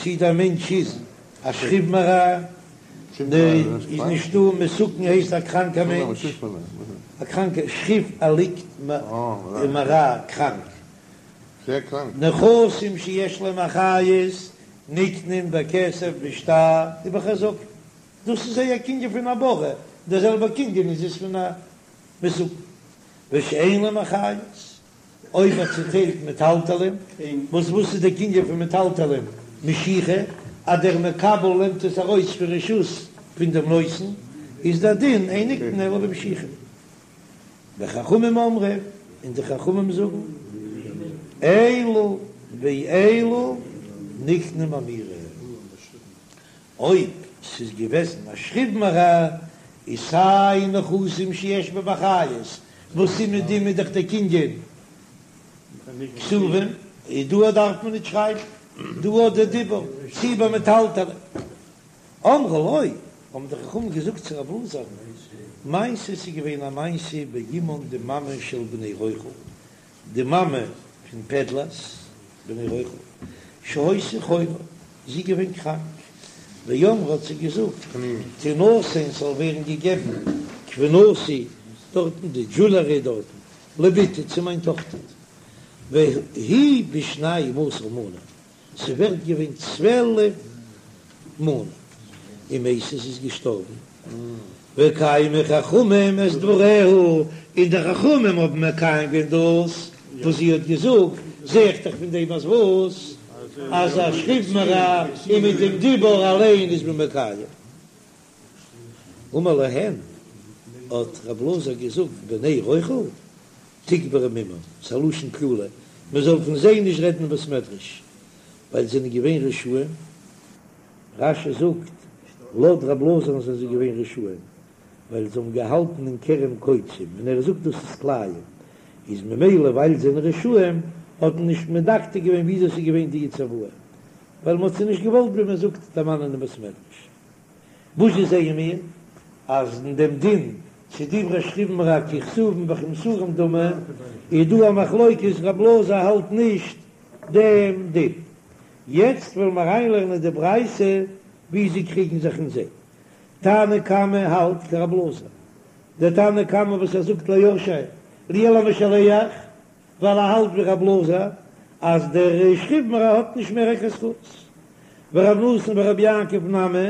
צי דער מענטש איז א שכיב מרע, איז נישטא, מסוכן הייסט א קראנקער מענטש, א קראנקער, שכיב ער ליגט מרע קראנק, נכסים שיש להם אחריות נקנין בכסף בשטר ובחזקה. דאס איז זייער קנין פון א בריא, דער זעלבער קנין איז עס פון א מסוכן. ושאין להם אחריות, אויב ער צוטיילט מטלטלין, וואס וואס איז דער קנין פון מטלטלין? משיכה, אז דער מקבל נעמט עס ארויס פון רשות פון דעם נותן, איז דער דין אין נקנין אלא במשיכה. וחכמים אומרים, און די חכמים זאגן, אלו ואלו נקנין באמירה. אויב ס'איז געוועזן א שכיב מרע, איז סיי נכסים שיש בהם אחריות, וואס איז מיט דעם איז דאך דער קנין כתובים, איז דא דארף מען נישט שרייבן, דא האט דער דיבור, צי ביי מטלטלין. אמרו לו, האבן די חכמים געזאגט צו רב אלעזר, מעשה ס'איז געווען א מעשה באמן די מאמע של בני רוכל, די מאמע פון פעדלערס, בני רוכל, שהיתה חולה, זי איז געווען קראנק, ואמרה האט זי געזאגט, תינתן ס'זאל ווערן געגעבן כבינתי, דארטן די דזשולערי דארטן, לבתי צו מיין טאכטער, והיא בשנים עשר מנה, ס'ווערט געווען 12 מנה, ומתה זי איז געשטארבן, וקיימו חכמים את דבריה, און די חכמים האבן מקיים געווען דאס וואס זי האט געזאגט, זע איך דאך פון דעם אז וואס? אז א שכיב מרע און מיט דעם דיבור אליין איז מען מקיים. אמר להן, האט רב אלעזר געזאגט, בני רוכל תקברו עמם, ס'איז א לשון קללה, מען זאל פון זיי נישט רעדן אין בית מדרש, ווייל זיי זענען געווען רשעים, רש"י זאגט, לויט רב אלעזר'ן זענען זיי געווען רשעים, ווייל זיי האבן געהאלטן אין כרם קוצים, און ער זאגט דאס איז כלאים, איז ממילא ווייל זיי זענען רשעים, האט מען נישט מדקדק געווען וויאזוי ס'איז געווען די צוואה, ווייל מען האט זיי נישט געוואלט ווי מען זאגט דערמאנען אין בית מדרש. וואס זשע זעען מיר? אז אין דעם דין צו דברי שכיב מרע ככתובין וכמסורין דמי, איז דא א מחלוקת, רב אלעזר האלט נישט דעם דין. יעצט וועלן מיר אריינלערנען די ברייתא ווי זיי קריגן זיך אין זיי. תנא קמא האלט כרב אלעזר, דער תנא קמא וואס ער זאגט ליורשי למשלח, ווייל ער האלט ווי רב אלעזר אז דער שכיב מרע האט נישט מער קיין זכות, ורב נתן ורבי יעקב נמי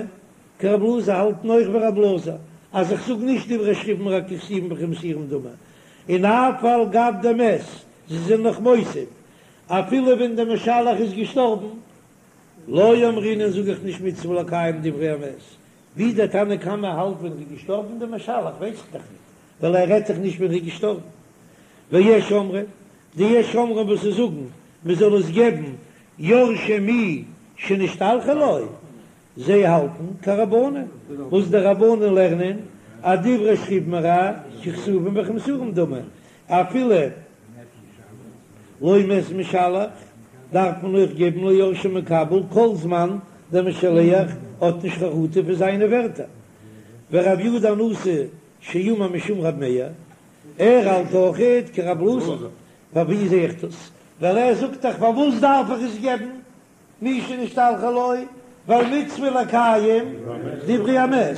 כרב אלעזר האלטן אויך ווי רב אלעזר אז איך זאג נישט דברי שכיב מרע ככתובין וכמסורין דמי, און אף על גב דמת, זיי זענען נאך מוסיף אפילו ווען דער משלח איז געשטארבן. לא אמרינן זאג איך נישט מצוה לקיים דברי המת, ווי דער תנא קמא האלט ווען ר'איז געשטארבן דער משלח ווייס איך דאך ניט, ווייל ער רעדט דאך נישט ווען ר'איז געשטארבן. ויש אומרים, די יש אומרים וואס זיי זאגן מען זאל עס געבן יורשי מי שנשתלחה לו, זיי האלטן כרבנן, וואס די רבנן לערנען אז דברי שכיב מרע ככתובים וכמסורים דמי, אפילו לא מת משלח דארף מען אויך געבן ליורשי מקבל כל זמן דער משלח האט נישט חרטה פון זיינע ווערטער. ורבי יהודה הנשיא שאמר משום רב מאיר, ער האלט אויכעט כרב אלעזר, פון ווי זעה איך דאס? ווייל ער זאגט דאך פארוואס דארף איך עס געבן מי שנשתלחה לו, ווייל מצוה לקיים דברי המת,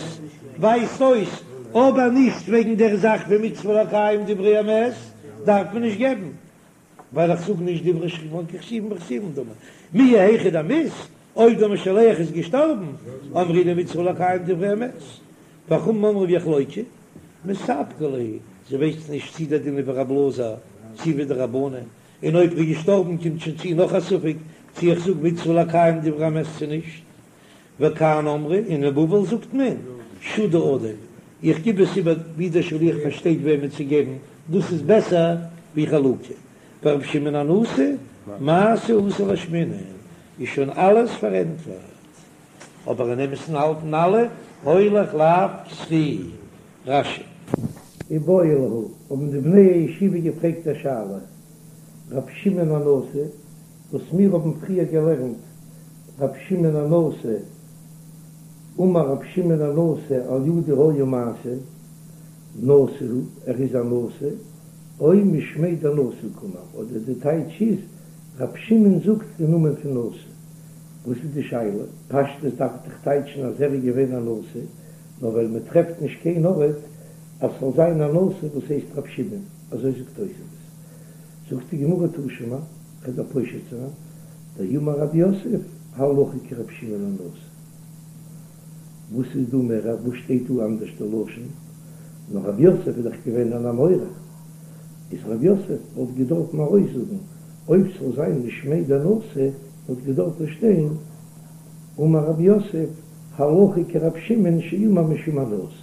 ווייזט אויס אבער נישט וועגן דער זאך פון מצוה לקיים דברי המת דארף מען נישט געבן, ווייל איך זאג נישט דברי שכיב מרע ככתובים וכמסורים דמי, מיהו היכא דמית, אויב דער משלח איז געשטארבן, אמרינן מצוה לקיים דברי המת, וחכמים אומרים יחלוקו, מספקא להו, זיי ווייסן נישט צי דער דין איז ווי רב אלעזר צי ווי די רבנן, און אויב ר'איז געשטארבן קומט שוין צו נאך א ספק צי איך זאג מצוה לקיים דברי המת צו נישט. וכאן אמרו, און אין בבל זאגט מען שודא עדיף, איך גיב עס איבער ווי דער שליח פארשטייט וועמען צו געבן, דאס איז בעסער ווי חלוקה. ורבי שמעון הנשיא, מעשה אתא לאשמועינן, איז שוין אלעס פארענטפערט. אבער אין אמת'ן האלטן אלע הולך לאו כזכי. רש"י. איבעיא להו, האבן די בני הישיבה געפרעגט א שאלה, רבי שמעון הנשיא, וואס מיר האבן פריער געלערנט, רבי שמעון הנשיא, אמר רבי שמעון הנשיא על ידי היה מעשה, נשיא הוא, ער איז א נשיא, או משמיה דנשיא קאמר, אדער די טייטש איז, רבי שמעון זאגט אין נאמען פון נשיא. וואס איז די שאלה? פשטות דארף דאך טייטשן אז ער איז געווען א נשיא, נאר ווייל מען טרעפט נישט קיין ארט אז ס'זאל זיין א נשיא וואס הייסט רב שמעון, אזוי זאגט תוספות. זאגט די גמרא תא שמע, כ'וועל דיר פושט זיין, דאמר רב יוסף, הלכה כרב שמעון הנשיא. וואס איז דא מער, וואס שטייט דא אנדערש די לשון? נאר רב יוסף איז דאך געווען אן אמורא, איז רב יוסף וואלט געדארפן ארויסזאגן אויב ס'זאל זיין משמיה דנשיא וואלט געדארפן שטיין אמר רב יוסף הלכה כרב שמעון שאמר משום הנשיא.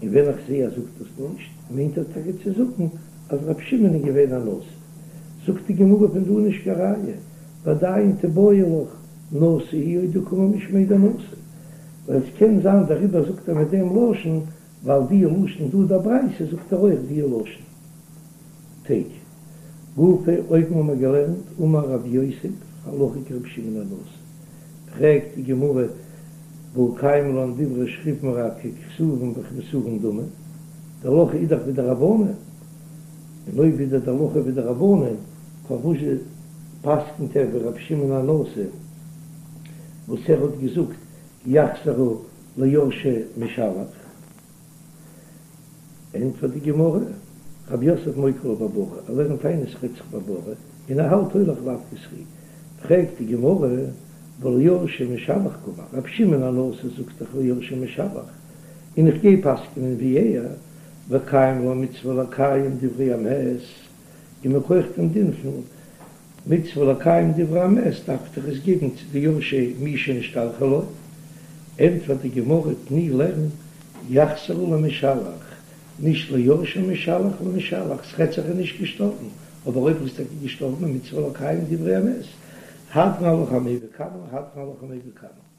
און ווען איך זעה אז זאגט דאס נישט, מיינט ער טאקע צו זאגן אז רב שמעון איז געווען א נשיא. זאגט די גמרא פון דא נישט קיין ראיה, ועדיין תיבעי לך נשיא הוא או דקאמר משמיה דנשיא, ווייל עס קען זיין דעריבער זאגט ער מיט דעם לשון, ווייל די לשון דא דער ברייתא זאגט ער אויך די לשון. תיקו. גופא, אויבן האבן מיר געלערנט אמר רב יוסף הלכה כרבי שמעון הנשיא, פרעגט די גמרא והא קיימא לן דברי שכיב מרע ככתובים וכמסורים דמי, די הלכה איז דאך ווי די רבנן, און אויב איז די הלכה ווי די רבנן פארוואס פסק'נט ער ווי רבי שמעון הנשיא וואס ער האט געזאגט יחזרו ליורשי משלח? ענטפערט די גמרא, רב יוסף מוקי לה בבריא, ער לערנט איין עס רעדט זיך בבריא, און ער האלט הולך לאו כזכי. פרעגט די גמרא, והא ליורשי משלח קאמר, רבי שמעון הנשיא זאגט דאך ליורשי משלח, און איך גיי פסק'נען ווי ער, וקיימא לן מצוה לקיים דברי המת, און מכח דעם דין פון מצוה לקיים דברי המת דארף איך עס געבן צו די יורשי מי שנשתלחה לו, ענטפערט די גמרא תני לערן יחזרו למשלח, נישט ליורשי משלח למשלח, ס'רעדט זיך ער איז נישט געשטארבן, אבער אויב ער איז טאקע געשטארבן איז מצוה לקיים דברי המת, הדרן עלך המביא קמא, הדרן עלך המביא קמא.